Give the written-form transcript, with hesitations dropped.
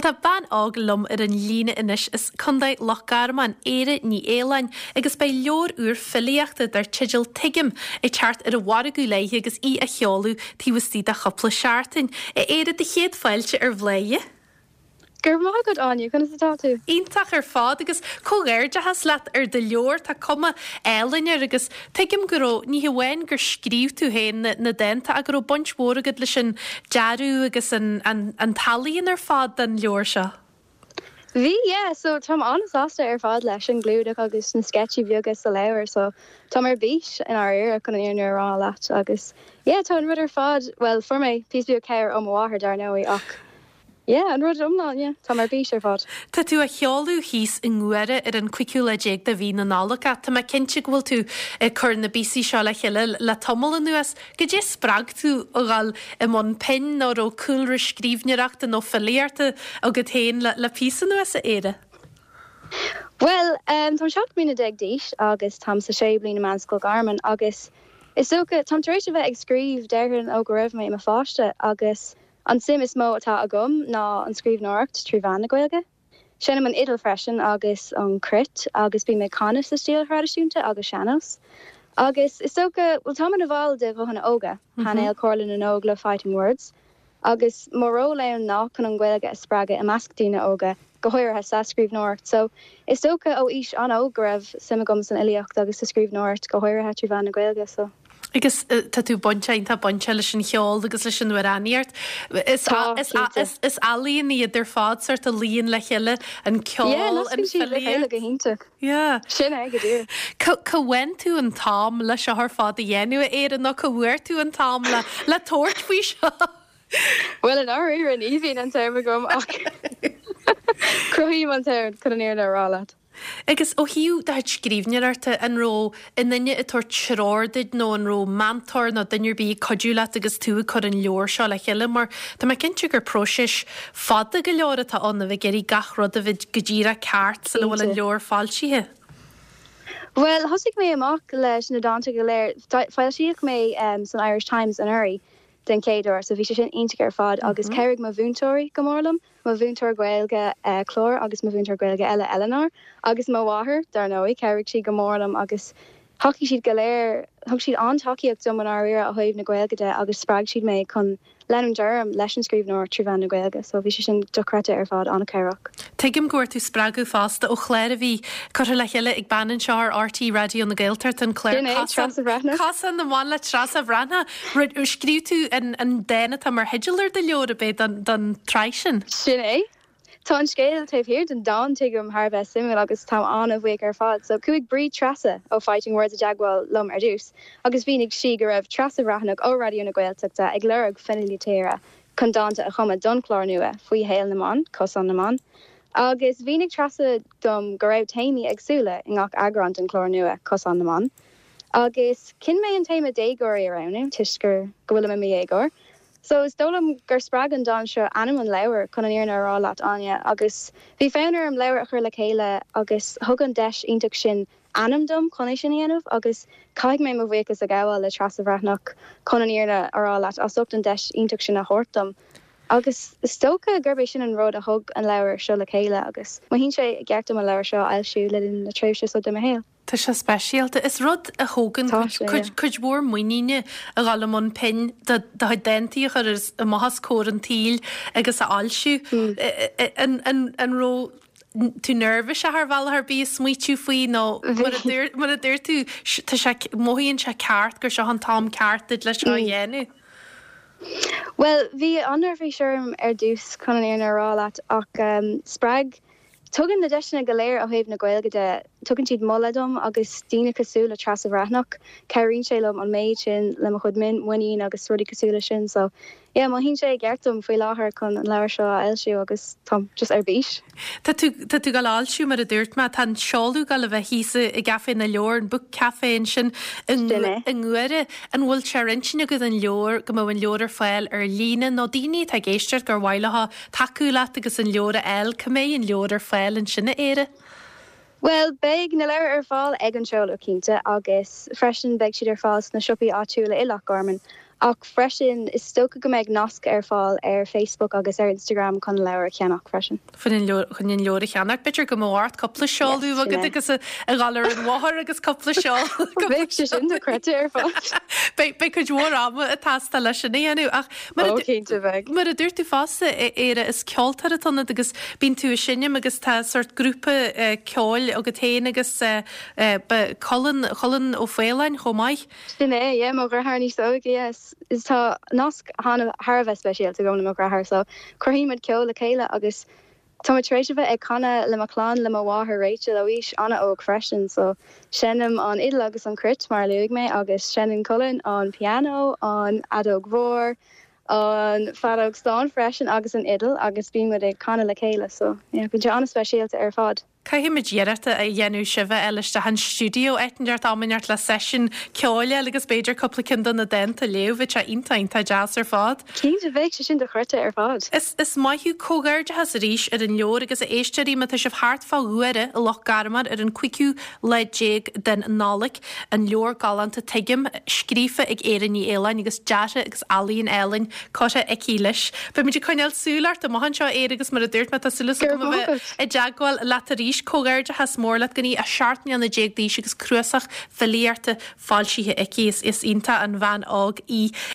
Bhuel tá bean óg liom ar an líne anois as Contae Loch Garman, Éire Ní Fhaoláin, agus beidh leabhar úr filíochta dar teideal Tuigim ag teacht ar an mhargadh léi agus í á sheoladh taobh istigh de chúpla seachtain. A Éire, do chéad fáilte ar Bhláth. Go raibh maith agat, Áine. Conas atá tú? Iontach ar fad agus comhghairdeachas leat ar do leabhar. Tá cuma álainn air agus tuigim go raibh, ní hamháin gur scríobh tú féin na dánta ach go raibh baint mhór agat leis an dearadh agus an an t-ealaíon ar fad den leabhar seo. Bhí, yeah. So táim an-sásta ar fad leis an gclúdach agus na sceitsí beaga sa leabhar so táim ar bís i ndáiríre chun an fhírinne a rá leat agus yeah tá an rud ar fad, bhuel fuair mé píosa beag cabhair ó mo mháthair dar ndóigh ach Yeah, an rud iomlán, yeah. Táim ar bís ar fad. Tá tú á sheoladh thíos i nGuaire ar an cúigiú lá déag de mhí na Nollag ach tá mé cinnte go bhfuil tú ag cur na bpíosaí seo le chéile le tamall anuas. Goidé spreag tú a dhul i mbun pinn nó raibh cúlra scríbhneoireachta nó filíochta agat féin le píosa anuas, a Éire? Bhuel, táim 17 mbliana d'aois agus táim sa séú bliain i Meánscoil Gharman agus is dócha, táim tar éis a bheith ag scríobh déarfainn ó go raibh mé i mo pháiste agus An suim is mó atá agam ná an scríbhneoireacht trí mheán na Gaeilge. Seinnim an fhidil freisin agus an cruit agus bím ag canadh sa stíl thraidisiúnta agus sean-nós. Agus is dócha, bhuel táim ina bhall de Ghuthanna Óga, painéal Comhairle na nÓg le Fighting Words, agus mo ról ann ná chun an Ghaeilge a spreagadh i measc daoine óga, go háirithe sa scríbhneoireacht. So is dócha ó aois an-óg go raibh suim agam san fhilíocht agus sa scríbhneoireacht, go háirithe trí mheán na Gaeilge. So. Agus tá tú bainteach, iontach bainteach leis an cheol agus leis an amhránaíocht. Is Tá, cinnte. is ealaíon iad ar fad, sórt a luíonn le chéile, an ceol, Yeah, an nascann siad le chéile filíocht. go hiontach. Yeah. Sin é, go díreach. Cá cá bhfaigheann tú an t-am le seo ar fad a dhéanamh, a Éire, nó cá bhfuair tú an t-am le le tabhairt faoi seo? Bhuel, i ndáiríre, ní bhíonn an t-am agam ach cruthaím an t-am chun an fhírinne a rá leat. Agus ó thaobh do chuid scríbhneoireachta, an raibh aon duine ag tabhairt treoir duit nó an raibh meantóir nó duine ar bith ag cuidiú leat agus tú ag cur an leabhar seo le chéile? Mar tá mé cinnte gur próiseas fada go leor atá ann a bheith ag iarraidh gach rud a bheith go díreach ceart sula bhfuil an Cinnte. leabhar foilsithe. Bhuel, thosaigh mé amach leis na dánta go léir. Foilsíodh mé san Irish Times anuraidh den chéad uair so bhí sé sin iontach ar fad agus chabhraigh mo mhúinteoirí go mór liom. mo mhúinteoir Gaeilge Clár agus mo mhúinteoir Gaeilge eile Eleanor agus mo mháthair, dar ndóigh. Chabhraigh siad go mór liom agus thacaigh siad go léir, thug siad an-tacaíocht dom i ndáiríre ó thaobh na Gaeilge de agus spreag siad mé chun leanúint orm leis an scríbhneoireacht trí mheán na Gaeilge so bhí sé sin dochreidte ar fad, an-chabhrach. Tuigim go bhfuair tú spreagadh fosta ó chlár a bhí curtha le chéile ag bean anseo ar RTÉ Raidió na Gaeltachta, an clár Sin é, Treasa Bhreathnach. Cosán na mBan le Treasa Bhreathnach. Scríobh tú an dán atá mar theideal ar do leabhar, ab é, don tsraith sin? Sin é. Tá an scéal taobh thiar den dán, tuigim, thar a bheith suimiúil agus táim an-bhuíoch ar fad. So, chuaigh Bríd Treasa ó Fighting Words i dteagmháil liom ar dtús agus mhínigh sí go raibh Treasa Bhreathnach ó Raidió na Gaeltachta ag lorg filí tíre chun dánta a chumadh don chlár nua faoi shaol na mban, Cosán na mBan. Agus mhínigh Treasa dom go raibh téamaí éagsúla i ngach eagrán den chlár nua, Cosán na mBan. Agus chinn mé an téama déagóirí a roghnú toisc gur go bhfuilim i mo dhéagóir. So is dóigh liom gur spreag an dán seo ainm an leabhair chun an fhírinne a rá leat Áine agus bhí fonn orm leabhar a chur le chéile agus thug an deis iontach sin ainm dom chun é sin a dhéanamh agus caithfidh mé mo bhuíochas a ghabháil le Treasa Bhreathnach chun an fhírinne a rá leat as ucht an deis iontach sin a thabhairt dom. Agus is dócha gurb é sin an rud a thug an leabhar seo le chéile agus mothaíonn sé i gceart dom an leabhar seo a fhoilsiú le linn na tréimhse seo de mo shaol. Tá sé speisialta. Is rud a thógann Tá sé, yeah. cuid mhór muiníne a dhul i mbun pinn do do chuid dántaí a chur amach os comhair an tsaoil agus a fhoilsiú. An raibh tú neirbhíseach ar bhealach ar bith ag smaoitiú faoi nó mar a dúirt mar a dúirt tú tá sé mothaíonn sé ceart gur seo an t-am ceart duit le seo a dhéanamh? Bhuel, bhí an-neirbhís orm ar dtús chun an fhírinne a rá leat ach spreag Tugann na deiseanna go léir ó thaobh na Gaeilge de, tugann siad moladh dom agus daoine cosúil le Treasa Bhreathnach, cabhraíonn sé liom an méid sin le mo chuid muinín agus rudaí cosúil leis sin. So, yeah, mothaíonn sé i gceart dom faoi láthair chun an leabhar seo a fhoilsiú agus táim just ar bís. Tá tú, tá tú ag dul a fhoilsiú mar a dúirt mé, tá an seoladh ag dul a bheith thíos i gCaifé na Leabhar, an Book Café ansin i Sin é. i nGuaire. An bhfuil sé ar intinn agat an leabhar, go mbeadh an leabhar ar fáil ar líne nó daoine atá ag éisteacht gur mhaith leo tacú leat agus an leabhar a fháil, cá mbeidh an leabhar ar fáil ansin, a Éire? Bhuel, beidh na leabhair ar fáil ag an seoladh, cinnte, agus freisin beidh siad ar fáil sna siopaí áitiúla i Loch Garman. Ach freisin, is dócha go mbeidh nasc ar fáil ar Facebook agus ar Instagram chun an leabhar a cheannach freisin. Chun an leabhar a cheannach. B'fhéidir go mbeadh ort cúpla seoladh Yes, sin agat é. agus a dhul ar an bhóthar agus cúpla seoladh. Bheadh sé sin dochreidte ar fad. Beidh beidh cuid mhór ama ag teastáil leis sin a dhéanamh ach mar a Ó, cinnte beidh. mar a dúirt tú fosta, a Éire, is ceoltóir atá ionat agus bíonn tú ag seinm agus tá sórt grúpa ceoil agat féin agus Colin, Colin Ó Faoláin chomh maith. Sin é, yeah, mo dheartháir níos óige, yeah. Is tá nasc thar a bheith speisialta agam le mo dheartháir so cruthaíonn muid ceol le chéile agus tá mé tar éis a bheith ag canadh le mo chlann, le mo mháthair Rachel ó aois an-óg freisin so seinnim an fhidil agus an chruit mar a luaigh mé agus seinneann Colin an pianó, an fheadóg mhór, an feadóg stáin freisin agus an fhidil agus bíonn muid ag canadh le chéile so yeah bíonn sé an-speisialta ar fad. Caithfimid iarracht a dhéanamh sibh a fháil isteach an stiúideo áit inteacht am inteacht le seisiún ceoil a fháil agus b'fhéidir cúpla ceann de na dánta a léamh. Bheadh sé iontach iontach deas ar fad. Cinnte, bheadh sé sin dochreidte ar fad. Is is maith thú. Comhghairdeachas arís ar an leabhar agus a éisteoirí má tá sibh thart fá Ghuaire i Loch Garman ar an cúigiú lá déag den Nollaig, an leabhar galánta Tuigim, scríofa ag Éire Ní Fhaoláin agus deartha agus ealaíon álainn curtha aici leis. Beimid ag coinneáil súil ort amach anseo, a Éire, agus mar a dúirt mé, tá súil Go raibh agam a maith bheith agat. i dteagmháil leat arís. Comhghairdeachas mór leat go dtí 17 mbliana d'aois agus cnuasach filíochta foilsithe aici. Is iontach an bhean óg í.